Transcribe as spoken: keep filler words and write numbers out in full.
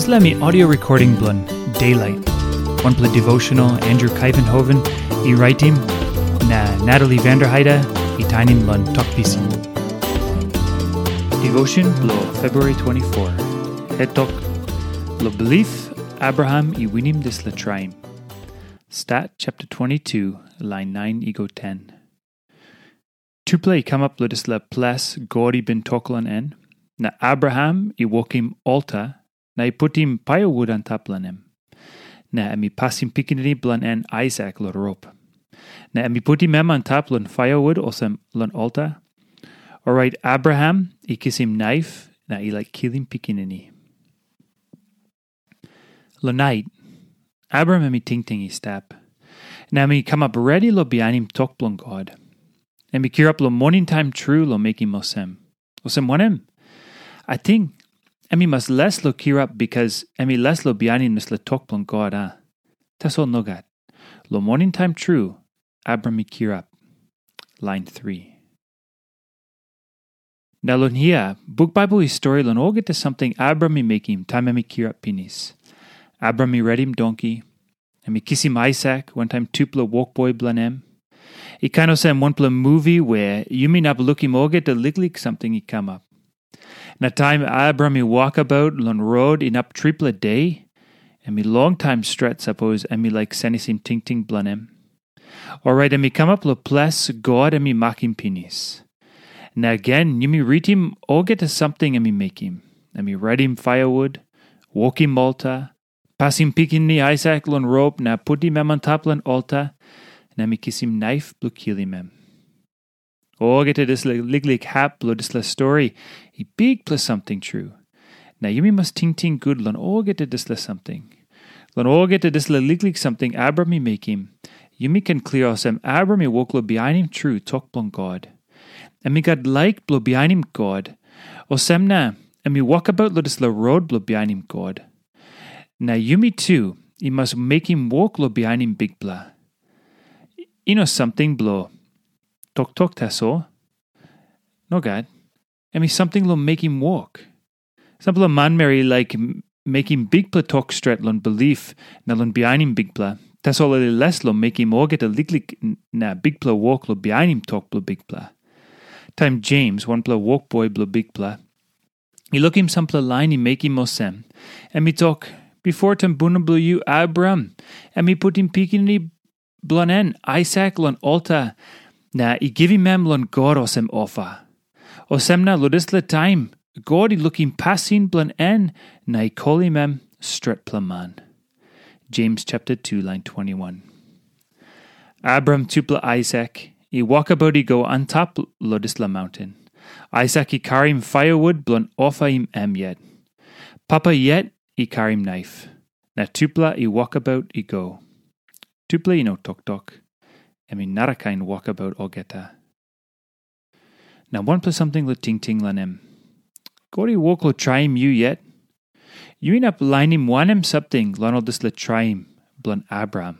Dispela mi audio recording bilong Daylight, wanpela devotional Andrew Kuyvenhoven i raitim, na Natalie Vanderheide i tainim long Tok Pisin. Devotion bilong February twenty-four. Het tok, lo bilip Abraham i winim dispela traim. Stat chapter twenty-two, lain nine i go ten. Tupela i kamap long dispela ples God i bin tok long en, na Abraham i wokim alta na i putim paiawut antap long em. Na em i pasim pikinini bilong en Aisak long rop. Na em i putim em antap long paiawut olsem long alta. Orait Abraham i kisim naip na i laik kilim pikinini. Long nait, Abraham em i tingting i stap, na em i kamap redi long bihainim tok bilong God. Em i kirap long moning taim tru long mekim olsem. Olsem wanem? Ating em i mas les long kirap bikas em i les long bihainim dispela tok bilong God, a? Tasol nogat. Long moning taim tru, Abraham i kirap. Lain three. Na long hia, buk Baibel i stori long olgeta samting Abraham i mekim taim em i kirap pinis. Abraham i redim donki, em i kisim Aisak wantaim tupela wokboi bilong em. I kain olsem wanpela muvi wea yumi inap lukim olgeta liklik samting i kamap. Na taim Abraham i wokabaut long rot inap tripela de, em i longtaim stret sapos em i laik senisim tingting bilong em. Orait em i kamap long ples God em i makim pinis. Na gen yumi ritim olgeta samting em i mekim. Em i redim paiawut, wokim alta, pasim pikinini Aisak long rop na putim em antap long alta, na em i kisim naip bilong kilim em. Olgeta dispela liklik hap bilong dispela stori i bikpela samting tru. Na yumi mas tingting gut long olgeta dispela samting. Long olgeta dispela liklik samting Abraham i mekim, yumi ken klia olsem Abraham i wok long bihainim tru tok bilong God. Em i gat laik bilong bihainim God, olsem na em i wokabaut long dispela rot bilong bihainim God. Na yumi tu i mas mekim wok long bihainim Bikpela. I no samting bilong toktok tasol. Nogat. Em i samting long mekim wok. Sampela manmeri i laik m- mekim bikpela tok stret long bilip na long bihainim Bikpela, tasol ol i les long mekim olgeta liklik n- na bikpela wok long bihainim tok bilong Bikpela. Taim Jems, wanpela wokboi bilong Bikpela, i lukim sampela lain i mekim olsem, em i tok, "Bipo tumbuna bilong yu, Abraham, em i putim pikinini bilong en Aisak long alta, na i givim em long God olsem ofa." Olsem na long dispela taim, God i lukim pasin bilong en na i kolim em stretpela man. Jems chapter two, lain twenty-one. Abraham tupela Aisak i wokabaut i go antap long dispela maunten. Aisak i karim paiawut bilong ofaim em yet. Papa yet i karim naip, na tupela i wokabaut i go. Tupela i no toktok. Em i narakain wokabaut olgeta. Na wanpela samting long tingting long em. God i wok long traim yu yet? Yu inap lainim wanem samting long ol dispela traim bilong Abraham?